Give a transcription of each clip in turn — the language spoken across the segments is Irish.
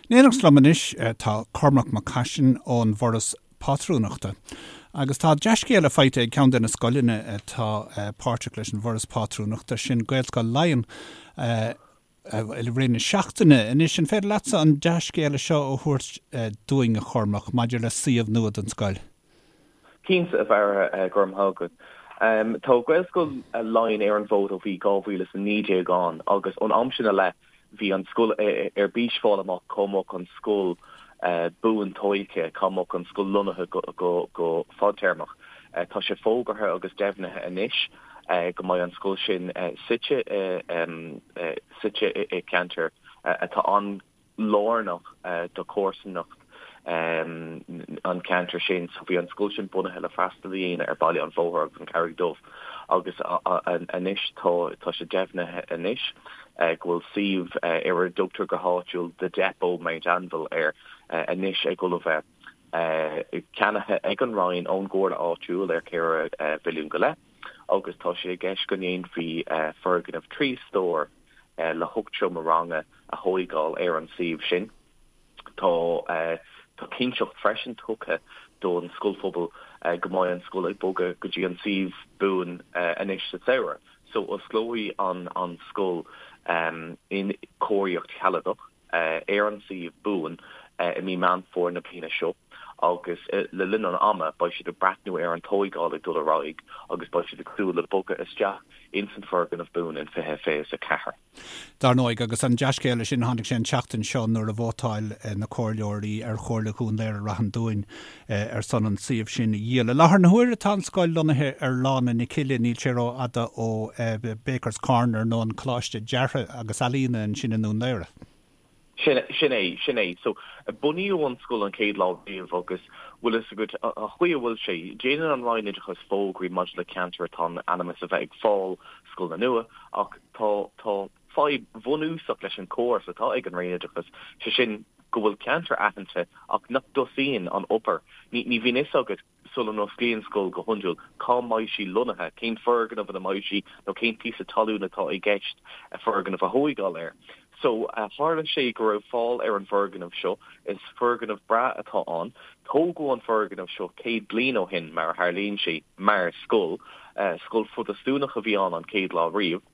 In éineacht liom anois tá Cormac Mac Caisin ón bhForas Pátrúnachta. Agus tá dea-scéala faighte ag ceann de na scoileanna atá páirteach leis an bhForas Pátrúnachta, sin Gaelscoil Laighean, i rith na seachtaine. Anois, an féidir leatsa an dea-scéala seo a thabhairt dúinn, a Chormaic, maidir le suíomh nua don scoil? Cinnte, a Bharra, go raibh maith agat. Tá Gaelscoil Laighean ar an bhfód ó bhí 2019 ann agus ón am sin i leith bhí an scoil ar bís fáil amach cá mbeadh an scoil buan tóigthe, cá mbeadh an scoil lonnaithe go fadtéarmach. Tá sé fógartha agus deimhnithe anois go mbeidh an scoil sin suite suite i gceantar atá an lárnach do chomharsanacht an cheantair sin. So bhí an scoil sin bunaithe le freastal a dhéanamh ar Baile an Bhóthair agus an Charraig Dubh agus anois tá tá sé deimhnithe anois go bhfuil suíomh ar a dtugtar go háitiúil The Depot Mount Anville air anois ag dul a bheith ceannaithe ag an Roinn ón gComhairle áitiúil ar 4 mhilliún go leith agus tá sé i gceist go ndéanfaí foirgneamh 3 stór le hocht seomra ranga a thóigeáil ar an suíomh sin. Tá tá cinnteacht freisin tugtha don scoilphobal go mbeidh an scoil ag bogadh go dtí an suíomh buan anois sa samhradh. So osclóidh an an scoil in cóiríocht shealadach ar an suíomh buan i mí Meán Fómhair na bliana seo agus le linn an ama beidh siad ag breathnú ar an tóigeáil ag dul ar aghaidh agus beidh siad ag súil le bogadh isteach ins an foirgneamh buan in 2024. Dar ndóigh, agus an dea-scéala sin, tháinig sé an tseachtain seo nuair a vótáil na comhairleoirí ar Chomhairle Dhún Laoghaire Rath an Dúin ar son an suíomh sin a dhíol. I láthair na huaire tá an scoil lonnaithe ar Lána na Cille, níl sé rófhada ó Bakers Corner nó an Coláiste Deartha agus Ealaíona ansin i nDún Laoghaire. Sin sin é, sin é. So, bunaíodh an scoil an chéad lá riamh agus bhfuil fhios agat, an chaoi a bhfuil sé, déanann an Roinn Oideachais fógraí maidir le ceantair atá in ainm is a bheith ag fáil scoileanna nua ach tá, tá fadhb bhunúsach leis an chóras atá ag an Roinn Oideachais, sé sin go bhfuil ceantar aitheanta ach nach dtosaíonn an obair. Ní, ní bhíonn fhios agat sula n-osclaíonn scoil go hiondúil, cá mbeidh sí lonnaithe, cén foirgneamh ina mbeidh sí nó cén píosa talún atá i gceist foirgneamh a thóigeáil air. So, tharla sé go raibh fáil ar an bhfoirgneamh seo, is foirgneamh breá atá ann. Tógadh an foirgneamh seo 100 bliain ó shin, mar a tharlaíonn sé, mar scoil. Scoil Phrotastúnach a bhí ann an chéad lá riamh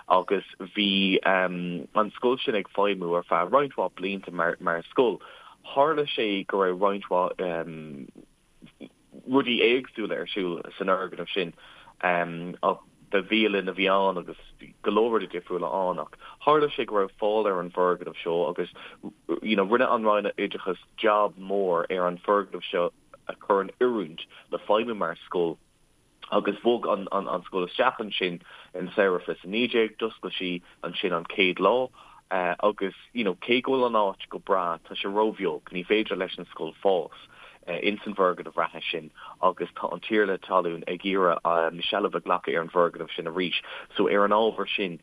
agus bhí an scoil sin ag feidhmiú ar feadh roinnt mhaith blianta mar scoil. Tharla sé go raibh roinnt mhaith rudaí éagsúla ar siúl san fhoirgneamh sin. Ba bhialann a bhí ann agus bhí go leor rudaí difriúla ann ach tharla sé go raibh fáil ar an bhfoirgneamh seo agus you know rinne an Roinn Oideachais jab mór ar an bhfoirgneamh seo a chur in oiriúint le feidhmiú mar scoil. agus bhog an an scoil isteach ansin in samhradh 2019, d'oscail sí ansin an chéad lá agus you know cé go bhfuil an áit go breá tá sé róbheag, ní féidir leis an scoil fás ins an bhfoirgneamh reatha sin agus tá an tiarna talún ag iarraidh seilbh a ghlacadh ar an bhfoirgneamh sin arís so ar an ábhar sin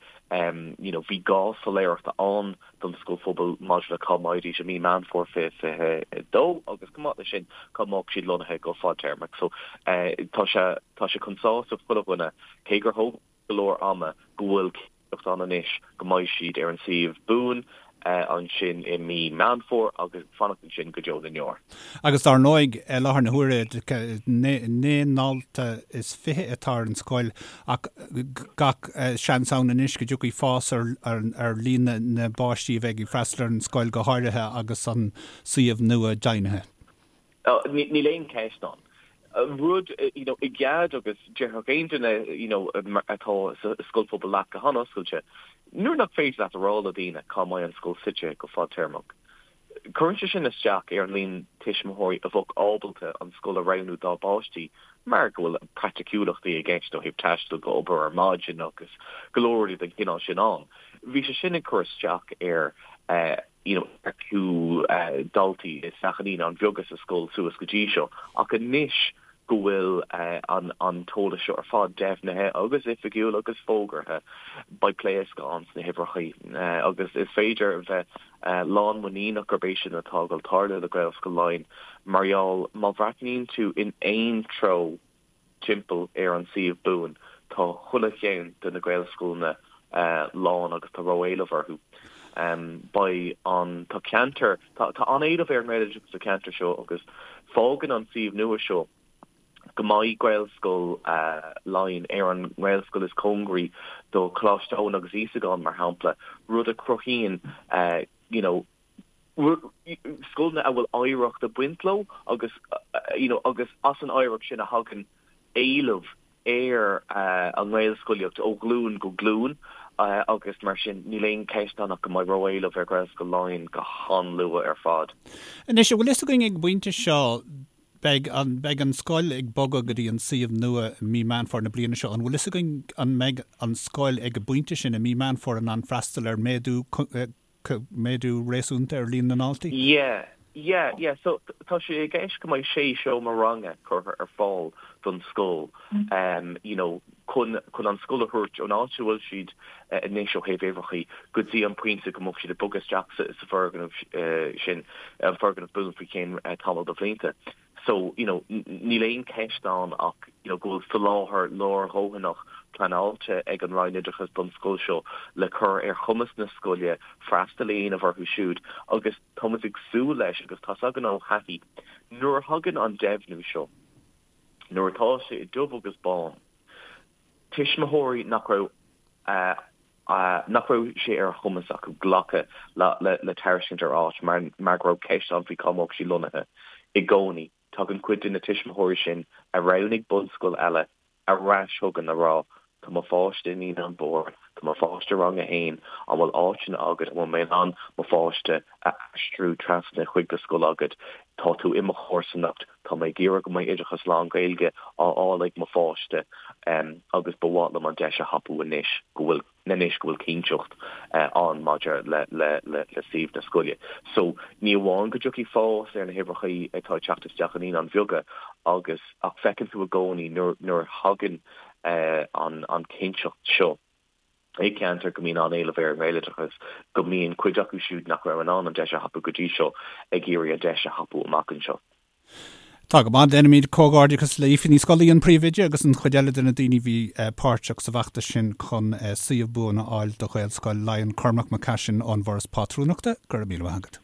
you know bhí gá soiléireachta ann don scoilphobal maidir le cá mbeidís i mí Meán Fómhair 2022 agus chomh maith leis sin cá mbeadh siad lonnaithe go fadtéarmach. So tá sé tá sé chun sásamh chuile dhuine, cé gur thóg go leor ama, go bhfuil cinnteacht ann anois go mbeidh siad ar an suíomh buan ansin i mí Meán Fómhair agus fanacht ansin go deo na ndeor. Agus dar ndóigh, i láthair na huaire, 29 ndalta atá ar an scoil ach gach seans ann anois go dtiocfaidh fás ar líon na bpáistí a bheidh ag freastal ar an scoil, go háirithe agus an suíomh nua deimhnithe. Níl aon cheist ann. Rud, you know, i gcead agus déarfadh aon duine, you know, atá sa scoilphobal leat go han-oscailte, nuair nach féidir leat a rá le daoine cá mbeidh an scoil suite go fadtéarmach, Cuireann sé sin isteach ar an líon tuismitheoirí a bheadh ábalta an scoil a roghnú dá bpáistí mar go bhfuil praiticiúlachtaí i gceist ó thaobh taisteal go obair ar maidin agus go leor rudaí den chineál sin ann. Bhí sé sin ag cur isteach ar you know earcú daltaí isteach i naíonáin bheaga sa scoil suas go dtí seo ach anois go bhfuil an an t-eolas seo ar fad deimhnithe agus oifigiúil agus fógartha, beidh pléascadh ann sna huimhreachaí agus is féidir a bheith lánmhuiníneach gurb é sin atá ag dul tarlú le Gaelscoil Laighean mar gheall má bhreathnaíonn tú in aon treo timpeall ar an suíomh buan tá chuile cheann de na Gaelscoileanna lán agus tá ró-éileamh orthu. Beidh an, tá ceantar, tá an-éileamh ar an nGaeloideachas sa cheantar seo agus fágann an suíomh nua seo go mbeidh Gaelscoil Laighean ar an nGaelscoil is cóngaraí do Choláiste Eoin agus Íosagáin, mar shampla, rud a chruthaíonn you know scoileanna a bhfuil oidhreacht ag baint leo agus you know agus as an oidhreacht sin a thagann éileamh ar an nGaelscolaíocht ó ghlúin go glúin agus mar sin níl aon cheist ann ach go mbeidh ró-éileamh ar Ghaelscoil Laighean go han-luath ar fad. Anois, an bhfuil fhios againn ag an bpointe seo, beidh an, beidh an scoil ag bogadh go dtí an suíomh nua i mí Meán Fómhair na bliana seo, an bhfuil fhios againn an mbeidh an scoil ag an bpointe sin i mí Meán Fómhair in ann freastal ar méadú méadú réasúnta ar líon na ndaltaí? Yeah, yeah, yeah. So tá sé i gceist go mbeidh sé seomra ranga curtha ar fáil don scoil, um, you know, chun, chun an scoil a thabhairt ón áit a bhfuil siad anois ó thaobh uimhreachaí go dtí an pointe go mbeadh siad ag bogadh isteach sa, sa foirgneamh sin, an foirgneamh buan faoi cheann tamall de bhlianta. So, you know, níl aon cheist ann ach, you know, go bhfuil soláthar leordhóthanach pleanáilte ag an Roinn Oideachais don scoil seo le cur ar chumas na scoile freastal a dhéanamh orthu siúd agus tá muid ag súil leis agus tá's againn ó thaithí nuair a thagann an deimhniú seo, nuair atá sé i dubh agus bán, tuismitheoirí nach raibh nach raibh sé ar a chumas acu glacadh le tairiscint ar áit mar go raibh ceist ann faoi cá mbeadh sí lonnaithe. I gcónaí, tagann cuid de na tuismitheoirí sin a roghnaigh bunscoil eile ar ais chugainn a rá 'tá mo pháiste i Naíonáin Mhóra, tá mo pháiste i rang a haon, an bhfuil áiteanna agat, an bhfuil mé in ann mo pháiste a aistriú trasna chuig do scoil agat, tá tú i mo chomharsanacht, tá mé ag iarraidh go mbeidh oideachas lán-Ghaeilge á fháil ag mo pháiste agus ba mhaith liom an deis a thapú anois go bhfuil anois go bhfuil cinnteacht ann maidir le le le suíomh na scoile. So ní amháin go dtiocfaidh fás ar na huimhreacha atá ag teacht isteach i Naíonáin Bheaga agus ach feiceann tú i gcónaí nuair nuair a thagann an an cinnteacht seo i gceantar go mbíonn an-éileamh ar an nGaeloideachas, go mbíonn cuid acu siúd nach raibh in ann an deis a thapú go dtí seo ag iarraidh an deis a thapú amach anseo. Tá go maith. Déanaimid comhghairdeachas le Aoife Ní Scolaí, an príomhoide, agus an chuid eile de na daoine a bhí páirteach sa bhfeachtas sin chun suíomh buan a fháil do Ghaelscoil Laighean. Cormac Mac Caisin ón bhForas Pátrúnachta, go raibh míle maith agat.